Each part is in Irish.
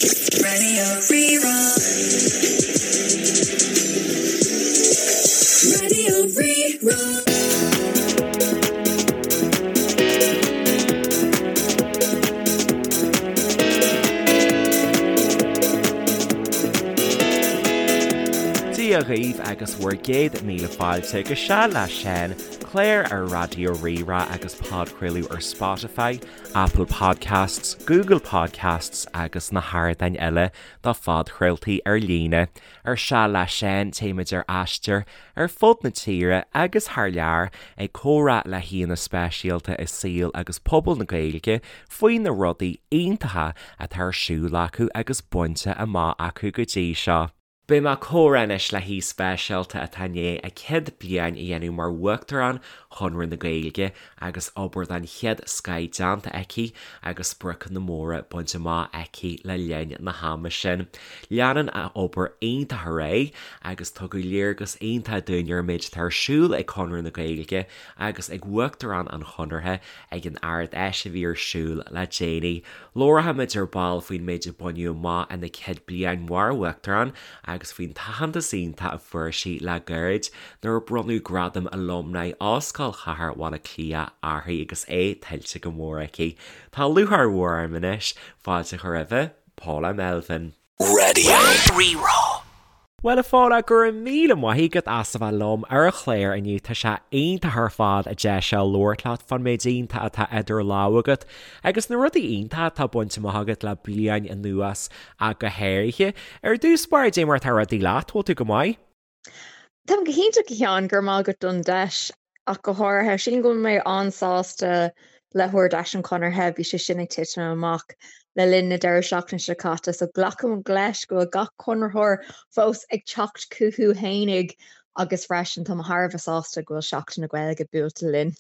Raidió Rí-Rá. Raidió Rí-Rá. Dia dhaoibh agus bhur gcéad míle fáilte go Seal le Seán, clár ar Raidió Rí-Rá agus podchraoladh ar Spotify, Apple Podcasts, Google Podcasts agus na hardáin eile do phodchraoltaí ar líne. Ar Seal le Seán, téimid ar aistear ar fud na tíre agus thar lear ag comhrá le haíonna speisialta i saol agus pobal na Gaeilge faoi na rudaí iontacha atá ar siúl acu agus bainte amach acu go dtí seo. Beidh mé ag comhrá anois le haoi speisialta atá i ndiaidh a céad bliain a dhéanamh mar Uachtarán Chonradh na Gaeilge agus obair den chéad scoith déanta aici agus spriocanna móra bainte amach aici le linn na hama sin. Leanann a obair iontach ar aghaidh agus tugadh léargas iontach dúinn ar an méid atá ar siúl ag Conradh na Gaeilge agus ag Uachtarán an Chonartha ag an Ard-Fheis a bhí ar siúl le déanaí. Labharfaimid ar ball faoin méid a baineadh amach ina céad bliain mar Uachtarán agus faoin t-aitheantas iontach a fuair sí le gairid nuair a bronnadh Gradam Alumni Ollscoil Chathair Bhaile Átha Cliath uirthi agus é tuillte go mór aici. Tá lúcháir mhór orm anois fáilte a chur roimhe, Paula Melvin. Raidió Rí-Rá. Bhuel a Phaula, go raibh míle maith agat as a bheith liom ar an chlár inniu. Tá sé iontach ar fad an deis seo labhairt leat fán méid iontach atá idir lámha agat agus na rudaí iontacha atá bainte amach agat le bliain anuas ach go háirithe. Ar dtús báire, dé mar atá rudaí leat, bhfuil tú go maith? Táim go hiontach a Sheáin, go raibh maith agat don deis ach go háirithe. Sílim go bhfuil mé an-sásta le hArd-Fheis an Chonartha, bhí sé sin ag titim amach le linn na deireadh seachtaine seo caite, so glacaim leis go bhfuil gach Conraitheoir fós ag teacht chucu fhéinig agus freisin tá mé thar a bheith sásta go bhfuil Seachtain na Gaeilge buailte linn.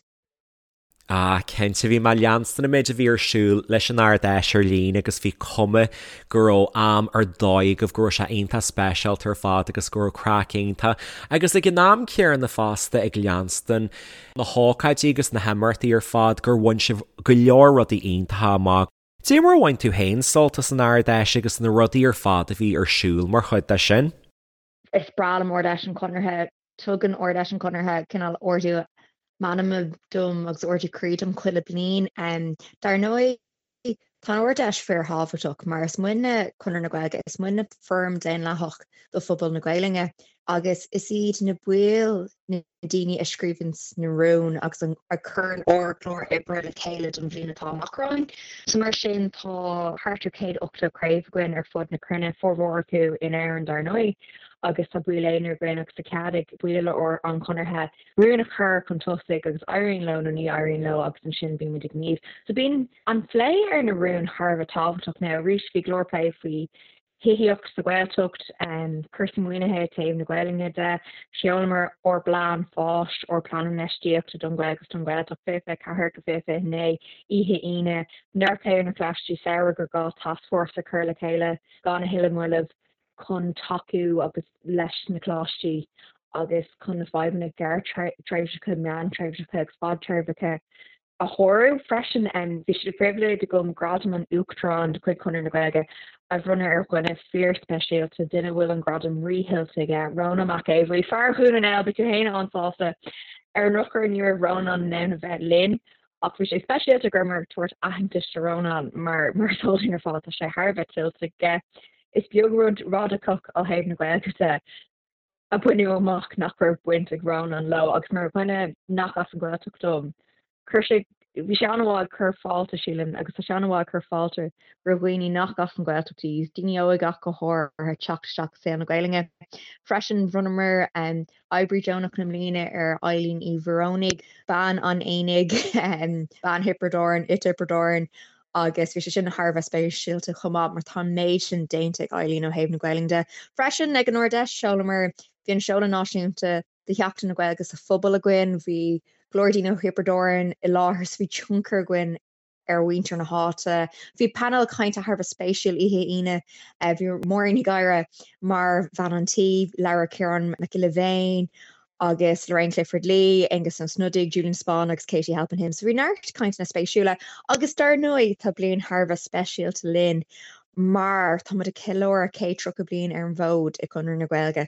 Ah, cinnte, bhí mé ag leanstan an méid a bhí ar siúl leis an Ard-Fheis ar líne agus bhí cuma go raibh am ar dóigh agaibh, go raibh sé iontach speisialta ar fad agus go raibh craic iontach agus ag an am céanna fosta ag leanstan na hócáidí agus na himeachtaí ar fad gur bhain sibh go leor rudaí iontacha amach. Dé mar a bhain tú féin sult as an Ard-Fheis agus na rudaí ar fad a bhí ar siúl mar chuid de sin? Is breá liom Ard-Fheis an Chonartha. Tugann Ard-Fheis an Chonartha cineál ardú meanma dom agus ardú croí dom chuile bliain. Dar ndóigh, tá an Ard-Fheis fíorthábhachtach mar is muidne Conradh na Gaeilge, is muidne foram daonlathach do phobal na Gaelainne agus is iad na baill na daoine a scríobhanns na rúin agus a chuireann ár gclár oibre le chéile don bhliain atá amach romhainn. So mar sin tá thart ar 180 craobh againn ar fud na cruinne, formhór acu in Éirinn dar ndóigh, agus tá baill aonair againn agus tá cead ag baill an Chonartha rúin a chur chun tosaigh agus éiríonn leo nó ní éiríonn leo agus ansin bíonn muid ag gníomh. So bíonn an plé ar na rúin thar a bheith tábhachtach. Now arís bhí go leor plé faoi thithíocht sa Ghaeltacht, cúrsaí maoinithe i dtaobh na Gaelainne de. Sheolamar ár bplean fáis, ár bplean infheistíochta don Ghaeilge agus don Ghaeltacht 2024-2029 oíche Aoine. Neart plé ar na coláistí samhraidh gur gá tascfhórsa a chur le chéile gan a thuilleadh moille chun tacú agus leis na coláistí agus chun na fadhbanna gearrthréimhseacha, meántréimhseacha agus fadtréimhseacha a shárú freisin. Bhí sé de phribhléid agam Gradam an Uachtaráin de chuid Chonradh na Gaeilge a bhronnadh ar dhuine fíorspeisialta, duine a bhfuil an gradam ríthuillte aige, Rónán Mac Aodha Bhuí, fear Dhún na nGall, beidh tú féin an-sásta. Ar an ndrochuair ní raibh Rónán in ann a bheith linn ach bhí sé speisialta go rabhamar ag tabhairt aitheantais do Rónán mar mar is eol dúinn ar fad tá sé thar a bheith tuillte aige. Is beag rud radacach ó thaobh na Gaeilge de a baineadh amach nach raibh baint ag Rónán leo agus mar dhuine nach as an Ghaeltacht dom, chuir sé, bhí sé an-mhaith ag cur fáilte, sílim, agus tá sé an-mhaith ag cur fáilte roimh dhaoine nach as an Ghaeltacht iad, daoine óga ach go háirithe, teacht isteach i saol na Gaelainne. Freisin, bhronnamar Oibrí Deonach na Mbliana ar Eileen Uí Mhóránaigh, bean an aonaigh, bean Thiobraid Árann, i dTiobraid Árann, agus bhí sé sin thar a bheith speisialta chomh maith mar tá an méid sin déanta ag Eileen ó thaobh na Gaelainne de. Freisin ag an Ard-Fheis sheolamar, bhí an seoladh náisiúnta de Sheachtain na Gaeilge sa phobal againn, bhí go leor daoine ó Thiobraid Árann i láthair so bhí tionchar againn ar mhuintir na háite. Bhí painéal cainte thar a bheith spéisiúil oíche Aoine, bhí Máirín Ní Ghadhra mar bhean an tí, labhair Ciarán Mac Giolla Bhéin agus Lorraine Clifford-Lee, Aengus Ó Snodaigh, Julian Spahn agus Katie Halpin Him. So bhí neart cainteanna spéisiúla agus dar ndóigh tá bliain thar a bheith speisialta linn. mar tá muid ag ceiliúradh 130 bliain ar an bhfód i Conradh na Gaeilge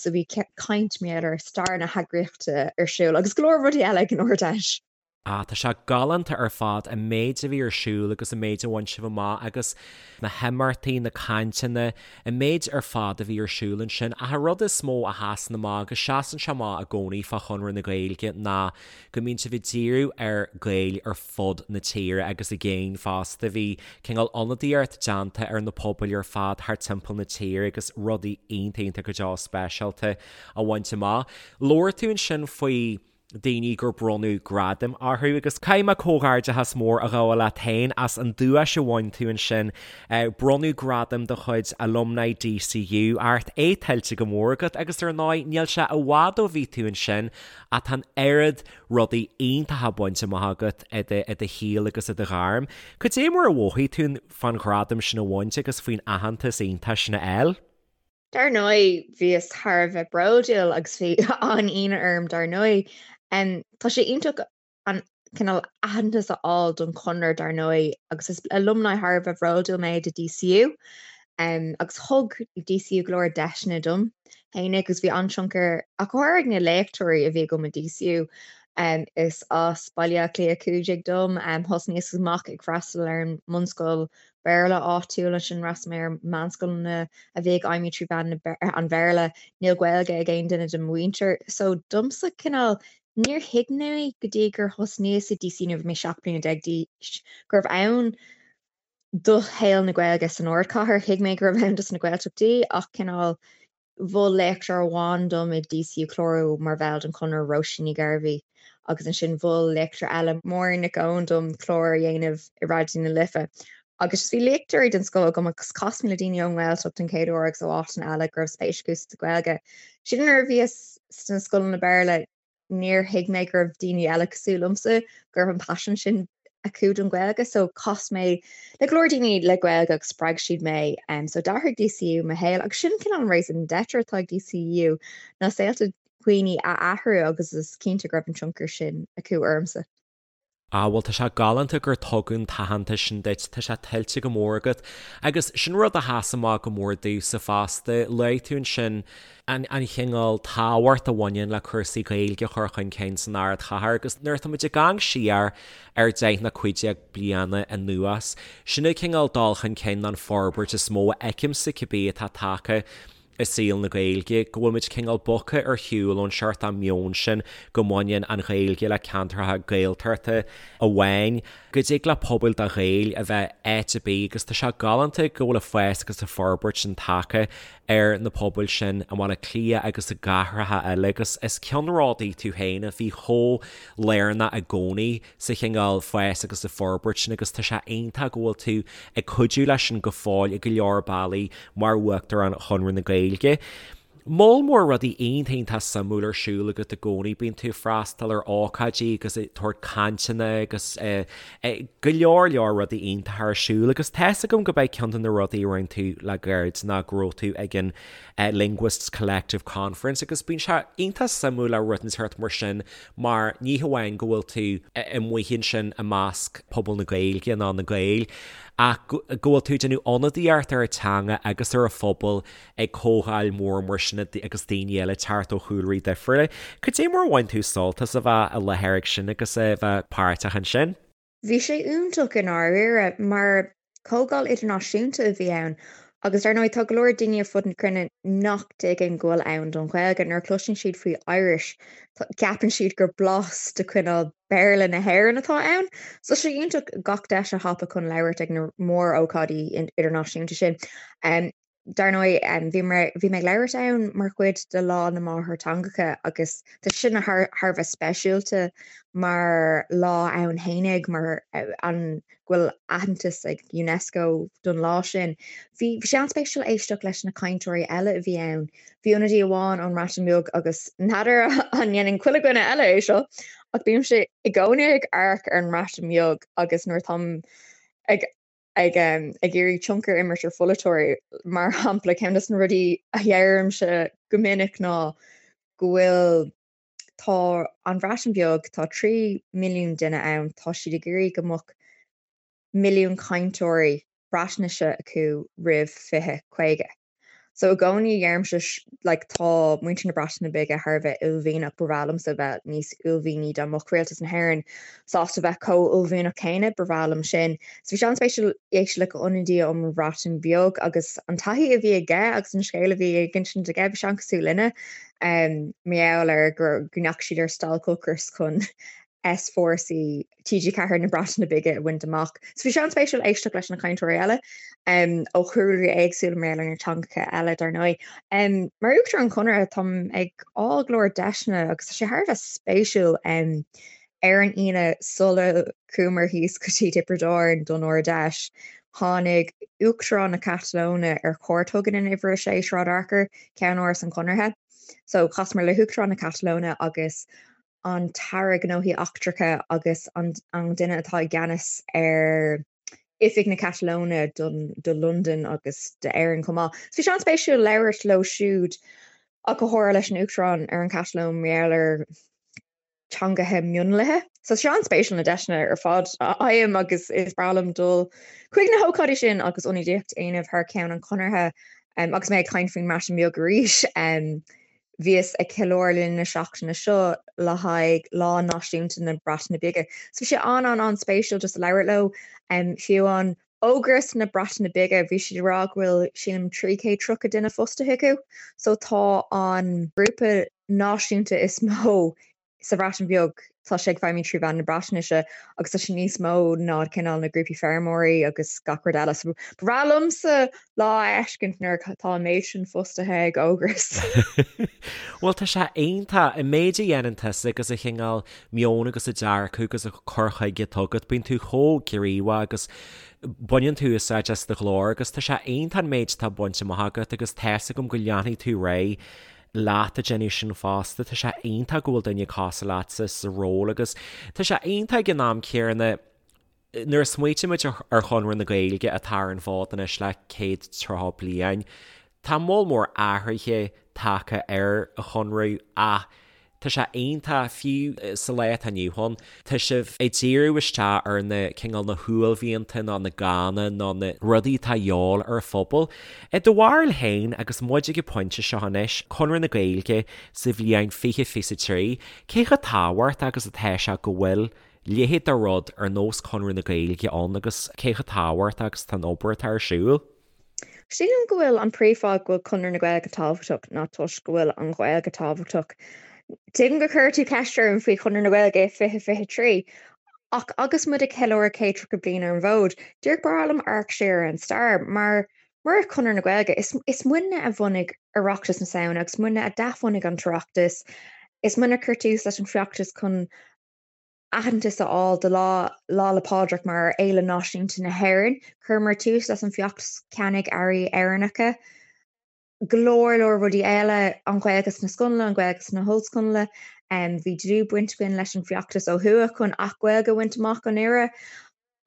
so bhí caint mar gheall ar stair na heagraíochta ar siúl agus go leor rudaí eile ag an Ard-Fheis. Ah, tá sé galánta ar fad an méid a bhí ar siúl agus an méid a bhain sibh amach agus na himeachtaí, na cainteanna, an méid ar fad a bhí ar siúl ansin. Ach an rud is mó a sheasann amach agus seasann sé amach i gcónaí fá Chonradh na Gaeilge ná go mbíonn sibh ag díriú ar Gaeil ar fud na tíre agus i gcéin fosta. Bhí cineál ionadaíocht déanta ar na pobail ar fad thart timpeall na tíre agus rudaí iontach iontach go deo speisialta á bhaint amach. Labhair tú ansin faoi daoine gur bronnadh gradaim orthu agus caithfidh mé comhghairdeachas mór a ghabháil leat féin as an duais a bhain tú ansin. Bronnadh gradam de chuid Alumni DCU ort, é tuillte go mór agat agus ar ndóigh níl sé i bhfad ó bhí tú ansin ach tá an oiread rudaí iontacha bainte amach agat i do shaol agus i do ghairm. Cad é mar a mhothaigh tú fán ghradam sin a bhaint agus faoin aitheantas iontach sin a fháil? Dar ndóigh, bhíos thar a bheith bródúil agus bhí an-ionadh orm dar ndóigh. Tá sé iontach an cineál aitheantas a fháil don Chonradh dar ndóigh agus is alumni thar a bheith bhródúil mé de DCU agus thug DCU go leor deiseanna dom fhéinig agus bhí an-tionchar ach go háirithe ag na léachtóirí a bhí agam i DCU. Is as Baile Átha Cliath 15 dom, thosnaíos amach ag freastal ar an mbunscoil Béarla áitiúil, ansin d'fhreastail mé ar meánscoileanna a bhí ag feidhmiú trí mheán an Bhéarla. Níl Gaeilge ag aon duine de mo mhuintir. So domsa cineál níor thuig mé go dtí gur thosnaíos i DCU nuair a bhí mé 17 bliana d'aois go raibh ann do shaol na Gaeilge san ardchathair. Thuig mé go raibh ann dos na Gaeltachtaí ach cineál Mhol léachtóir amháin dom i DCU clárú mar bhall den Chonradh, Róisín Ní Ghairbhí, agus ansin mhol léachtóir eile, Máirín Nic Eoin, dom clár a dhéanamh i Raidió na Life. Agus just bhí léachtóirí den scoth agam agus chas mé le daoine ón nGaeltacht den chéad uair agus ó áiteanna eile go raibh spéis acu sa Ghaeilge. Sílim nuair a bhíos sna scoileanna Béarla, níor thuig mé go raibh daoine eile cosúil liomsa, go raibh an paisean sin acu don Ghaeilge so chas mé le go leor daoine le Gaeilge agus spreag siad mé. So d'athraigh DCU mo shaol agus sin cineál an raison d'être atá ag DCU ná saolta dhaoine a athrú agus is cinnte go raibh an tionchar sin acu ormsa. Ah bhuel tá sé galánta gur tugadh an t-aitheantas sin duit, tá sé tuillte go mór agat. Agus sin rud a sheas amach go mór domhsa fosta, luaigh tú ansin an an chineál tábhacht a bhaineann le cúrsaí Gaeilge a chur chun cinn san ardchathair agus nuair atá muid ag amharc siar ar 10 nó 15 bliana anuas, sin an cineál dul chun cinn nó an forbairt is mó a fheicimse cibé atá tagtha i saol na Gaeilge, go bhfuil muid cineál bogtha ar shiúl ón seort meon sin go mbaineann an Ghaeilge le ceantracha Gaeltachta amháin, go dtig le pobail de Ghaeil a bheith áit ar bith agus tá sé galánta go bhfuil an fás agus an forbairt sin tagtha ar na pobail sin i mBaile Átha Cliath agus i gcathracha eile agus is ceannródaí tú féin a bhí chomh lárnach i gcónaí sa chineál fás agus sa forbairt sin agus tá sé iontach go bhfuil tú ag cuidiú leis sin go fóill i go leor bealaí mar Uachtarán Chonradh na Gaeilge. Moll mór rudaí iontach iontach suimiúil ar siúl agat i gcónaí, bíonn tú ag freastal ar ócáidí agus ag tabhairt cainteanna agus go leor leor rudaí iontacha ar siúl agus tá's agam go b'é ceann de na rudaí a rinne tú le gairid ná go raibh tú ag an Linguists Collective Conference agus bíonn sé iontach suimiúil le rud inteacht mar sin mar ní hamháin go bhfuil tú amuigh ansin i measc pobal na Gaeilge ná na Gaeil ach go bhfuil tú ag déanamh ionadaíocht ar an teanga agus ar an phobal ag comhdháil mhór mar sin agus daoine eile ag teacht ó chúlraí difriúla. Cad é mar a bhain tú sult as a bheith i láthair ag sin agus a bheith páirteach ansin? Bhí sé iontach i ndáiríre, mar comhdháil idirnáisiúnta a bhí ann agus dar ndóigh tá go leor daoine ar fud na cruinne nach dtuigeann go bhfuil ann don Ghaeilge. Nuair a chloiseann siad faoi Irish, ceapann siad gur blas de chineál Béarla na hÉireann atá ann. So tá sé iontach gach deis a thapú chun labhairt ag na mór-ócáidí idirnáisiúnta sin. Dar ndóigh, bhí mé bhí mé ag labhairt ann mar chuid de Lá na Máthairtheangacha agus tá sin thar thar a bheith speisialta mar lá ann fhéinig mar an go bhfuil aitheantas ag UNESCO don lá sin. Bhí bhí sé an-spéisiúil éisteacht leis na cainteoirí eile a bhí ann. Bhí ionadaí amháin ón mBreatain Bheag agus n'fheadar an ndéanann chuile dhuine eile é seo ach bímse i gcónaí ag amharc ar an mBreatain Bheag agus nuair atáim ag ag ag iarraidh tionchar a imirt ar pholaiteoirí, mar shampla, ceann de na rudaí a dheirimse go minic ná go bhfuil tá an Bhreatain Bheag, tá 3 milliún duine ann, tá siad ag iarraidh go mbeadh milliún cainteoirí. Breatnaise acu roimh 2050. So i gcónaí deirimse like tá muintir na Breataine Bige thar a bheith uaillmhianach, ba bhreá liomsa bheith níos uaillmhianaí dá mbeadh rialtas na hÉireann sásta bheith chomh uaillmhianach céanna, ba bhreá liom sin. So bhí sé an-spéisiúil éisteacht le ionadaí ón mBreatain Bheag agus an taithí a bhí aige agus an scéal a bhí ag insint aige, bhí sé an-cosúil linne mar gheall ar go ndeachaigh siad ar stailc ocrais chun S4C TG4 na Breataine Bige a bhaint amach. So bhí sé an-spéisiúil éisteacht leis na cainteoirí eile ó chúlraí éagsúla mar gheall ar na teangacha eile dar ndóigh. Mar Uachtarán an Chonartha táim ag fháil go leor deiseanna agus tá sé thar a bheith spéisiúil ar an Aoine sula chuamar thíos go dtí Tiobraid Árann don Ard-Fheis tháinig Uachtarán na Catalóine ar cuairt chugainn in Uimhir 6 Sráid Fhearchair, ceannáras an Chonartha. So chasamar le hUachtarán na Catalóine agus an tAire Gnóthaí Eachtracha agus an duine atá i gceannas ar Oifig na Catalóine do Londain agus d'Éirinn chomh maith. So bhí sé an-spéisiúil labhairt leo siúd ach go háirithe leis an Uachtarán ar an Chatalóin mar gheall ar teangacha mionlaithe. So tá sé an-spéisiúil na deiseanna ar fad a fhaighim agus is breá liom dul chuig na hócáidí sin agus ionadaíocht a dhéanamh thar ceann an Chonartha agus mé ag caint faoin mBreatain Bheag arís. Bhíos ag ceiliúradh le linn na seachtaine seo le haghaidh Lá Náisiúnta na Breataine Bige. So bhí sé an-an-an-spéisiúil just labhairt leo. Fiú amháin Ógras na Breataine Bige, bhí siad ag rá go bhfuil sílim 330 duine fostaithe acu. So tá an grúpa náisiúnta is mó sa Bhreatain Bheag, tá sé ag feidhmiú trí mheán na Breatnaise agus tá sé níos mó ná cineál na grúpaí feirmeoirí agus gach rud eile. So ba bhreá liomsa lá a fheiscint nuair atá an méid sin fostaithe ag Ógras. Bhuel tá sé iontach, an méid a dhéanann tusa agus an cineál meoin agus an dearcadh agus an cur chuige atá agat, bíonn tú chomh gníomhach agus baineann tú úsáid as do ghlór agus tá sé iontach an méid atá bainte amach agat agus tá's agam go leanfaidh tú ar aghaidh leat ag déanamh sin fosta. Tá sé iontach go bhfuil duine cosúil leatsa sa ról agus tá sé iontach ag an am céanna nuair a smaoitímid ar Chonradh na Gaeilge atá ar an bhfód anois le 130 bliain, tá moll mór athruithe tagtha ar an Chonradh ach tá sé iontach, fiú sa lá atá inniu ann, tá sibh ag díriú isteach ar na cineál na huaillmhianta nó na gánna nó na rudaí atá de dhíobháil ar an phobal. I do bharúil féin, agus muid ag an bpointe seo anois, Conradh na Gaeilge sa bhliain 2023, cé chomh tábhachtach agus atá sé go bhfuil leithéid de rud ar nós Conradh na Gaeilge ann agus cé chomh tábhachtach agus atá an obair atá ar siúl? Sílim go bhfuil an príomhfháth go bhfuil Conradh na Gaeilge tábhachtach ná toisc go bhfuil an Ghaeilge tábhachtach. Tuigim gur chuir tú ceist orm faoi Chonradh na Gaeilge i 2023, ach agus muid ag ceiliúradh 130 bliain ar an bhfód, díreach ba bhreá liom amharc siar ar an stair, mar murach Conradh na Gaeilge, is is muidne a bhunaigh Oireachtas na Samhna agus muidne a d'athbhunaigh an tOireachtas, is muidne a chuir tús leis an bhfeachtas chun aitheantas a fháil do Lá Lá 'le Pádraig mar Fhéile Náisiúnta na hÉireann. Chuireamar tús leis an bhfeachtas ceannaigh earraí Éireannacha. Go leor leor rudaí eile, an Ghaeilge sna scoileanna, an Ghaeilge sna hollscoileanna. Bhí dlúthbhaint againn leis an bhfeachtas ó thuaidh chun Acht Gaeilge a bhaint amach anuraidh.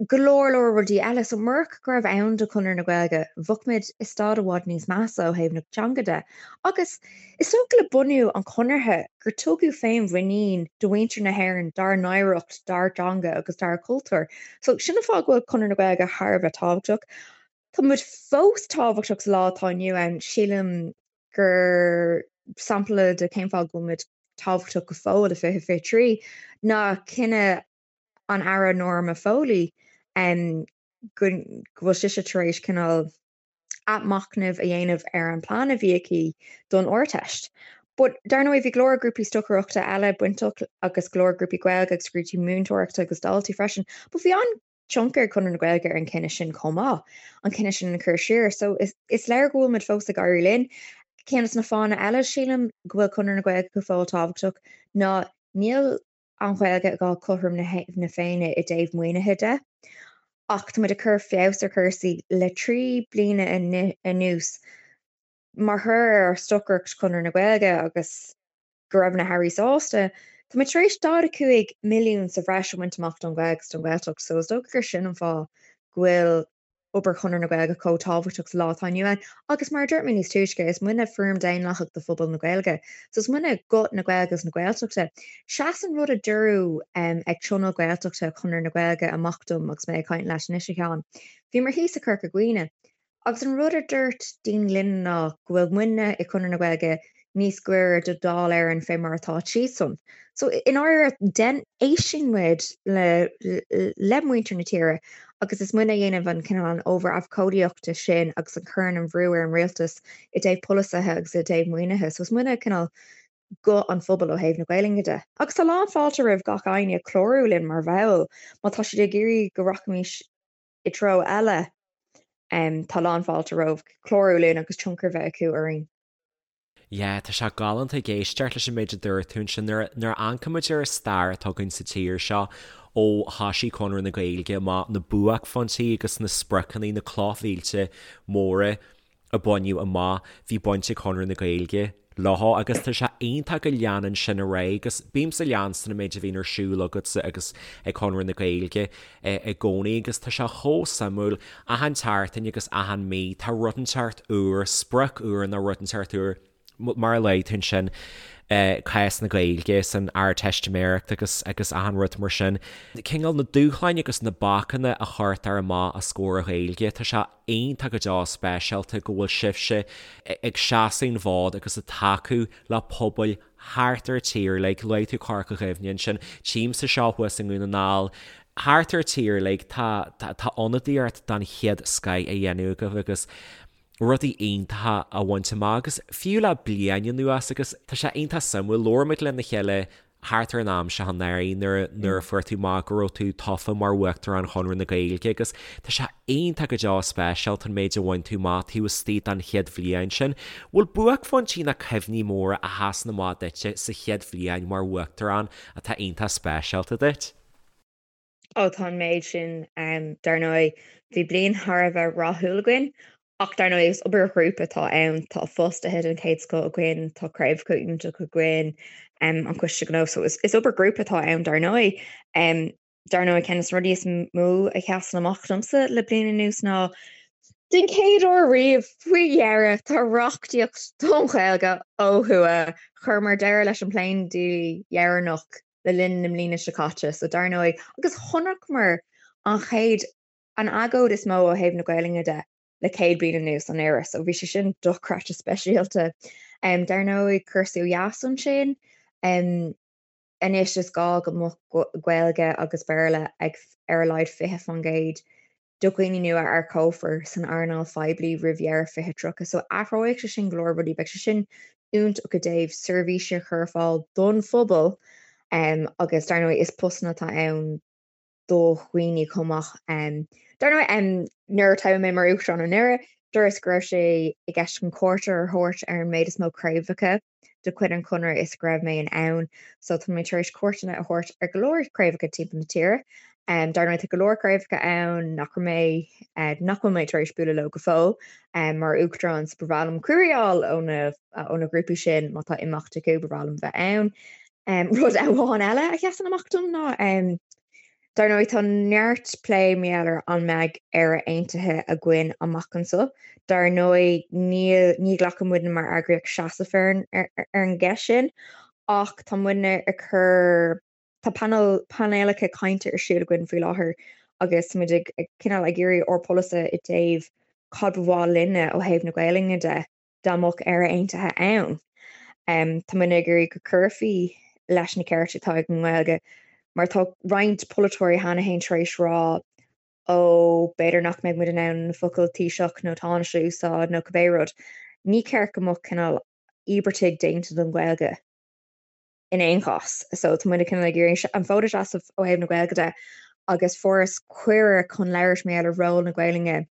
Go leor leor rudaí eile. So murach go raibh ann do Chonradh na Gaeilge, bheadh muid i staid i bhfad níos measa ó thaobh na teanga de. Agus is dócha le bunú an Chonartha gur tugadh féinmhuinín do mhuintir na hÉireann dár n-oidhreacht, dár dteanga agus dár gcultúr. So sin an fáth go bhfuil Conradh na Gaeilge thar a bheith tábhachtach. Tá muid fós tábhachtach sa lá atá inniu ann. Sílim gur sampla de cén fáth go bhfuil muid tábhachtach go fóill i 2023 ná cinneadh an Aire Norma Foley go bhfuil sise tar éis cineál athmhachnamh a dhéanamh ar an plean a bhí aici don Ardteist. But dar ndóigh bhí go leor grúpaí stocaireachta eile bainteach agus go leor grúpaí Gaeilge agus grúpaí múinteoireachta agus daltaí freisin. But bhí an-tionchar ag Conradh na Gaeilge ar an cinneadh sin chomh maith, an cinneadh sin a chur siar. So is, is léir go bhfuil muid fós ag éirí linn. Ceann de na fáthanna eile sílim go bhfuil Conradh na Gaeilge go fóill tábhachtach ná níl an Ghaeilge ag fáil cothrom na Féinne i dtaobh maoinithe de, ach tá muid ag cur feabhas ar chúrsaí le 3 bliana anuas mar thoradh ar ár stocaireacht Chonradh na Gaeilge agus go raibh na hairí sásta. Tá muid tar éis 45 milliún sa bhreis a bhaint amach don Ghaeilge agus don Ghaeltacht so is dócha gur sin an fáth go bhfuil. obair Chonradh na Gaeilge chomh tábhachtach sa lá atá inniu ann agus mar a dúirt mé níos túisce, is muidne foirm daonlathach de phobal na Gaeilge. So is muidne guth na Gaeilge agus na Gaeltachta. Sheas an rud a dúradh ag Tionól Gaeltachta Chonradh na Gaeilge amach dom agus mé ag caint leat anois, a Sheáin. Bhíomar thíos i Corca Dhuibhne agus an rud a dúirt daoine linn ná go bhfuil muidne i Conradh na Gaeilge níos gaire do Dáil Éireann fé mar atá siadsan. So i ndáiríre, den, éisteann muid le, le muintir na tíre agus is muidne a dhéanamh an cineál an obair abhcóideachta sin agus a chuireann an bhrú ar an rialtas i dtaobh polasaithe agus i dtaobh maoinithe. So is muidne cineál guth an phobail ó thaobh na Gaelainne de. Agus tá lán fáilte roimh gach éinne clárú linn mar bhall má tá siad ag iarraidh go rachaimis i dtreo eile. Tá lán fáilte romhaibh clárú linn agus tionchar bheith acu orainn. Yeah, tá sé galánta ag éisteacht leis an méid a dúirt tú ansin. Nuair a amharcaimid ar an stair atá againn sa tír seo ó thoisigh Conradh na Gaeilge amach, na buaicphointí agus na spriocanna, na clochmhílte móra a baineadh amach, bhí baint ag Conradh na Gaeilge leo agus tá sé iontach go leanann sin ar aghaidh agus bímse ag leanstan an méid a bhíonn ar siúl agatsa agus ag Conradh na Gaeilge i gcónaí agus tá sé chomh suimiúil achan tseachtain agus achan mí tá rud inteacht úr, sprioc úr nó rud inteacht úr mar a luaigh tú ansin cás na Gaeilge san Ardteistiméireacht agus agus achan rud mar sin. Cineál na dúshláin agus na bacanna a chuirtear amach os comhair an Ghaeilge, tá sé iontach go deo speisialta go bhfuil sibhse ag seasamh an fhóid agus ag tacú le pobail thart ar an tír uilig, luaigh tú Corca Dhuibhne ansin, tchímse seo thuas i nDún na nGall, thart ar an tír uilig tá tá ionadaíocht den chéad scoith á dhéanamh agaibh agus rudaí iontacha á bhaint amach agus fiú le bliain anuas agus tá sé iontach suimiúil, labhair muid lena chéile thart ar an am seo anuraidh nuair nuair a fuair tú amach go raibh tú tofa mar Uachtarán Chonradh na Gaeilge agus tá sé iontach go deo speisialta an méid a bhain tú amach taobh istigh den chéad bhliain sin. Bhfuil buaicphointí nó cuimhní móra a sheasann amach duitse sa chéad bhliain mar Uachtarán atá iontach speisialta duit? Ó tá an méid sin dar ndóigh. Bhí bliain thar a bheith rathúil againn ach dar ndóigh is obair ghrúpa atá ann. Tá fostaithe den chéad scoth againn, tá craobhacha iontacha againn, an Coiste Gnó, so is obair ghrúpa atá ann dar ndóigh. Dar ndóigh ceann de na rudaí is mó a sheasann amach domsa le bliain anuas ná den chéad uair riamh, faoi dheireadh, tá reachtaíocht don Ghaeilge ó thuaidh. Chuireamar deireadh leis an bpléindlí dheireanach le linn na mbliana seo caite, so dar ndóigh, agus chonaiceamar an chéad, an agóid is mó ó thaobh na Gaelainne de le 100 bliain anuas anuraidh, so bhí sé sin dochreidte speisialta. Dar ndóigh, cúrsaí ó dheas ansin, anois is gá go mbeadh Gaeilge agus Béarla ag ar a laghad 20% do dhaoine nua a earcófar san earnáil phoiblí roimh dheireadh 2030. So athróidh sé sin go leor rudaí, beidh sé sin iontach i dtaobh seirbhísí a chur ar fáil don phobal agus dar ndóigh is postanna atá ann do dhaoine chomh maith. Dar ndóigh nuair a toghadh mé mar Uachtarán anuraidh, dúras go raibh sé i gceist chun cuairt a thabhairt ar an méid is mó craobhacha de chuid an Chonradh is go raibh mé in ann. So tá mé tar éis cuairteanna a thabhairt ar go leor craobhacha timpeall na tíre. Dar ndóigh tá go leor craobhacha ann nach raibh mé, nach bhfuil mé tar éis bualadh leo go fóill mar Uachtarán so ba bhreá liom cuireadh a fháil ó na, ó na grúpaí sin má tá imeacht acu ba bhreá liom bheith ann. Rud amháin eile a sheasann amach dom ná Dar ndóigh, tá neart plé mar gheall ar an mbeidh Éire Aontaithe againn amach anseo. Dar ndóigh, níl, ní ghlacann muidne mar eagraíocht seasamh ar an, ar an gceist sin, ach tá muidne ag cur, tá painéal, painéalacha cainte ar siúl againn faoi láthair agus tá muid ag, ag cineál ag iarraidh ár bpolasaithe i dtaobh cad ba mhaith linne ó thaobh na Gaelainne de. dá mbeadh Éire Aontaithe ann. Tá muidne ag iarraidh go cuirfí leis na cearta atá ag an nGaeilge mar tá roinnt polaiteoirí cheana féin tar éis rá ó b'fhéidir nach mbeidh muid in ann na focail Taoiseach nó Tánaiste a úsáid nó cibé rud. Ní ceart go mbeadh cineál íobartaigh déanta don Ghaeilge in aon chás. So tá muid cineál ag iarraidh an fód a sheasamh ó thaobh na Gaeilge de agus fuaireas cuireadh chun labhairt mar gheall ar ról na Gaelainne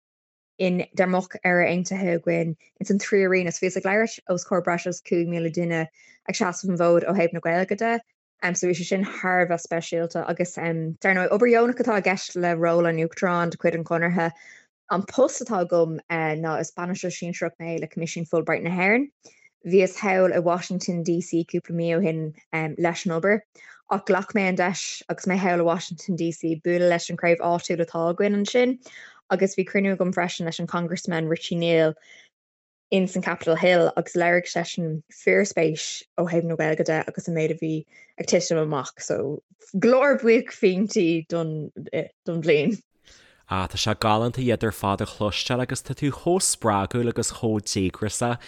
in dá mbeadh Éire Aontaithe againn ins an tríú roinn so bhíos ag labhairt os comhair breis agus 5,000 duine ag seasamh an bhfóid ó thaobh na Gaeilge de. So bhí sé sin thar a bheith speisialta agus dar ndóigh obair dheonach atá i gceist le ról an Uachtaráin de chuid an Chonartha. An post atá agam ná is bainisteoir sinsearach mé le Coimisiún Fulbright na hÉireann. Bhíos thall i Washington DC cúpla mí ó shin leis an obair ach ghlac mé an deis agus mé thall i Washington DC bualadh leis an chraobh áitiúil atá againn ansin. Agus bhí cruinniú agam freisin leis an Congressman Richie Neal in san Capitol Hill agus léirigh seisean fíorspéis ó thaobh na Gaeilge de agus an méid a bhí ag titim amach. So go leor buaicphointí don don bhliain. Ah, tá sé galánta iad ar fad a chloisteáil agus tá tú chomh spreagúil agus chomh díograiseach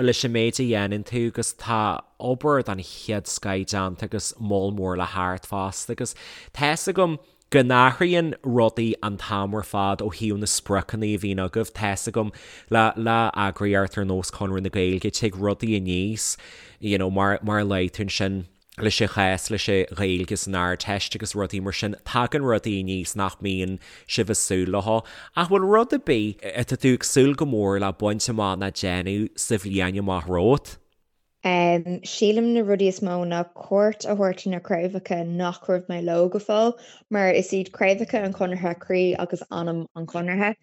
leis an méid a dhéanann tú agus tá obair den chéad scoith déanta agus moll mór le theacht fosta agus tá fhios agam go n-athraíonn rudaí an t-am ar fad ó thaobh na spriocanna a bhíonn agaibh, tá fhios agam le le eagraíocht ar nós Conradh na Gaeilge tig rudaí aníos you know mar mar a luaigh tú ansin. leis an chás leis an Ghaeilge san Ardteist agus rudaí mar sin, tagann rudaí aníos nach mbíonn sibh ag súil leo. Ach bhfuil rud ar bith atá tú ag súil go mór le baint amach ná déanamh sa bhliain amach romhat? Sílim na rudaí is mó ná cuairt a thabhairt ar na craobhacha nach raibh mé leo go fóill, mar is iad craobhacha an Chonartha croí agus anam an Chonartha.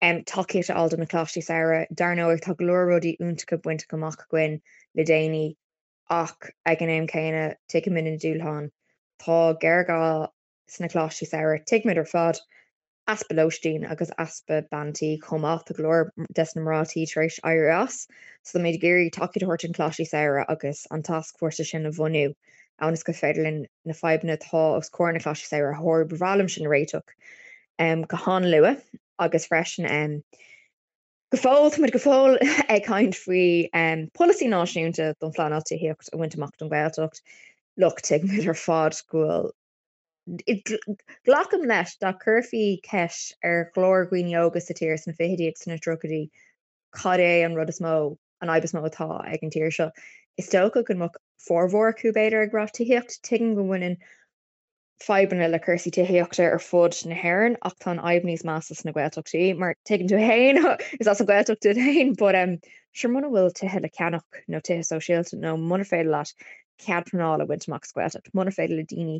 Tacaíocht a fháil do na Coláistí Samhraidh. Dar ndóigh tá go leor rudaí iontacha bainte amach againn le déanaí. Ach ag an am céanna, tuigimid na dúshláin. Tá géarghá sna coláistí samhraidh, tuigimid ar fad easpa lóistín agus easpa bean tí chomh maith. Tá go leor des na mná tí tar éis éirí as. So táimid ag iarraidh tacaíocht a thabhairt don choláistí samhraidh agus an tascfhórsa sin a bhunú ionas gur féidir linn na fadhbanna atá os comhair na coláistí samhraidh a shárú. Ba bhreá liom sin a réiteach go han-luath agus freisin Go fóill, táimid go fóill ag caint faoi polasaí náisiúnta don phleanáil tithíocht a bhaint amach don Ghaeltacht. Look, tuigimid ar fad go bhfuil, glacaim leis, dá gcuirfí ceist ar go leor dhaoine óga sa tír sna fichidí agus sna tríochaidí cad é an rud is mó, an fhadhb is mó atá ag an tír seo, is dócha go mbeadh formhór acu b'fhéidir ag rá tithíocht. Tuigim go mbaineann fadhbanna le cúrsaí tithíochta ar fud na hÉireann ach tá an fhadhb níos measa sna Gaeltachtaí mar tuigeann tú féin is as an Ghaeltacht duit féin but um, sure muna bhfuil tithe le ceannach nó tithe sóisialta nó muna féidir leat cead pleanála a bhaint amach sa Ghaeltacht, muna féidir le daoine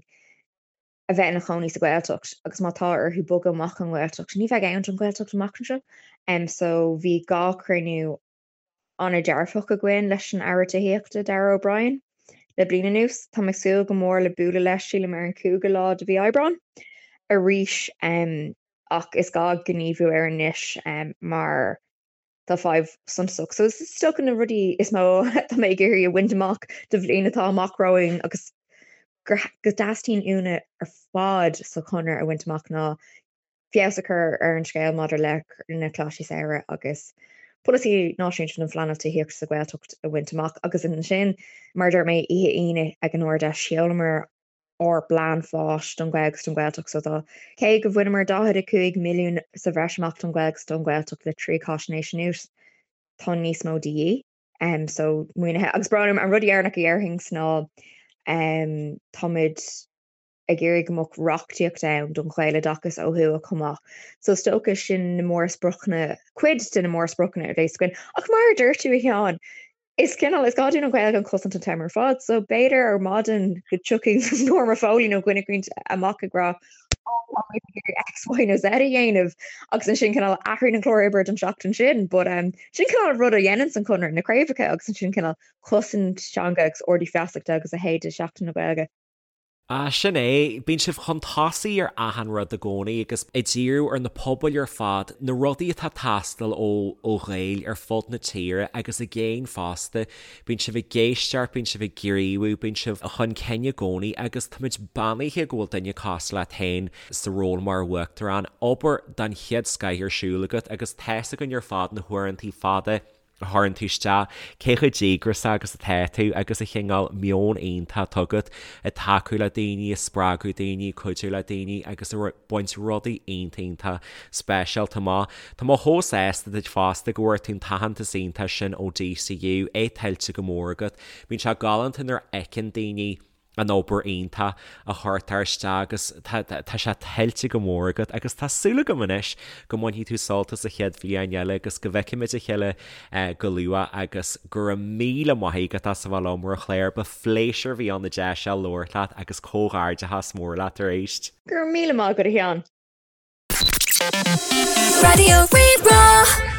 a bheith ina chónaí sa Ghaeltacht agus má tá orthu bogadh amach ón nGaeltacht, ní bheidh ann don Ghaeltacht amach anseo. Um, so bhí gá cruinniú an-dearfach againn leis an Aire Tithíochta, Darragh O'Brien, le bliain anuas. Táim ag súil go mór le bualadh leis, sílim, ar an 5ú lá de mhí Aibreáin arís ach is gá gníomhú air anois mar tá fadhb suntasach. So is dócha na rudaí is mó atá mé ag iarraidh a bhaint amach do bhliain atá amach romhainn agus go dteastaíonn uainne ar fad sa Chonradh a bhaint amach ná feabhas a chur ar an scéal maidir le na Coláistí Samhraidh agus polasaí náisiúnta don phleanáil tithíochta sa Ghaeltacht a bhaint amach agus ansin, mar a dúirt mé, oíche Aoine ag an Ard-Fheis, sheolamar ár bplean fáis don Ghaeilge agus don Ghaeltacht so tá, cé go bhaineamar 45 milliún sa bhreis amach don Ghaeilge agus don Ghaeltacht le 3 cáisnéis anuas, tá níos mó de dhíth. So, maoinithe. Agus brón orm, an rud dheireanach a dhéarfainn ná táimid ag iarraidh go mbeadh reachtaíocht ann don Ghaeloideachas ó thuaidh chomh maith. So is dócha sin na mórspriocanna, cuid de na mórspriocanna a bheas againn. Ach mar a dúirt tú, a Sheáin, is cineál, is gá dúinn an Ghaeilge a chosaint an t-am ar fad. So b'fhéidir ar maidin go dtiocfaidh Norma Foley nó duine éicint amach ag rá oh, tá muid ag iarraidh X, Y nó Z a dhéanamh agus ansin cineál athraíonn an clár oibre don seachtain sin. But um, sin cineál rud a dhéanann an Conradh, na craobhacha agus ansin cineál cosaint teanga agus ardú feasachta agus a leithéid de Seachtain na Gaeilge. Ah, sin é. Bíonn sibh chun tosaigh ar achan rud i gcónaí agus ag díriú ar na pobail ar fad, na rudaí atá ag teastáil ó ó Ghaeil ar fud na tíre agus i gcéin fosta. Bíonn sibh ag éisteacht, bíonn sibh ag gníomhú, bíonn sibh chun cinn i gcónaí agus táimid beannaithe go bhfuil duine cosúil leat féin sa ról mar Uachtarán. Obair den chéad scoith ar siúl agat agus tá's againn ar fad na huaireantaí fada a chuireann tú isteach, cé chomh díograiseach agus atá tú agus an cineál meon iontach atá agat ag tacú le daoine, ag spreagadh daoine, ag cuidiú le daoine agus ag baint rudaí iontach iontach speisialta amach. Tá mé chomh sásta duit fosta go bhfuair tú an t-aitheantas iontach sin ó DCU, é tuillte go mór agat. Bíonn sé galánta nuair a fheiceann daoine an obair iontach a chuirtear isteach agus tá sé tuillte go mór agat agus tá súil agam anois go mbainfidh tú sult as an chéad bhliain eile agus go bhfeicfimid a chéile go luath agus go raibh míle maith agat as a bheith liom a Chléir, ba phléisiúr a bhí ann an deis seo labhairt leat agus comhghairdeachas mór leat arís. Go raibh míle maith agat a Sheáin. Raidió Rí-Rá.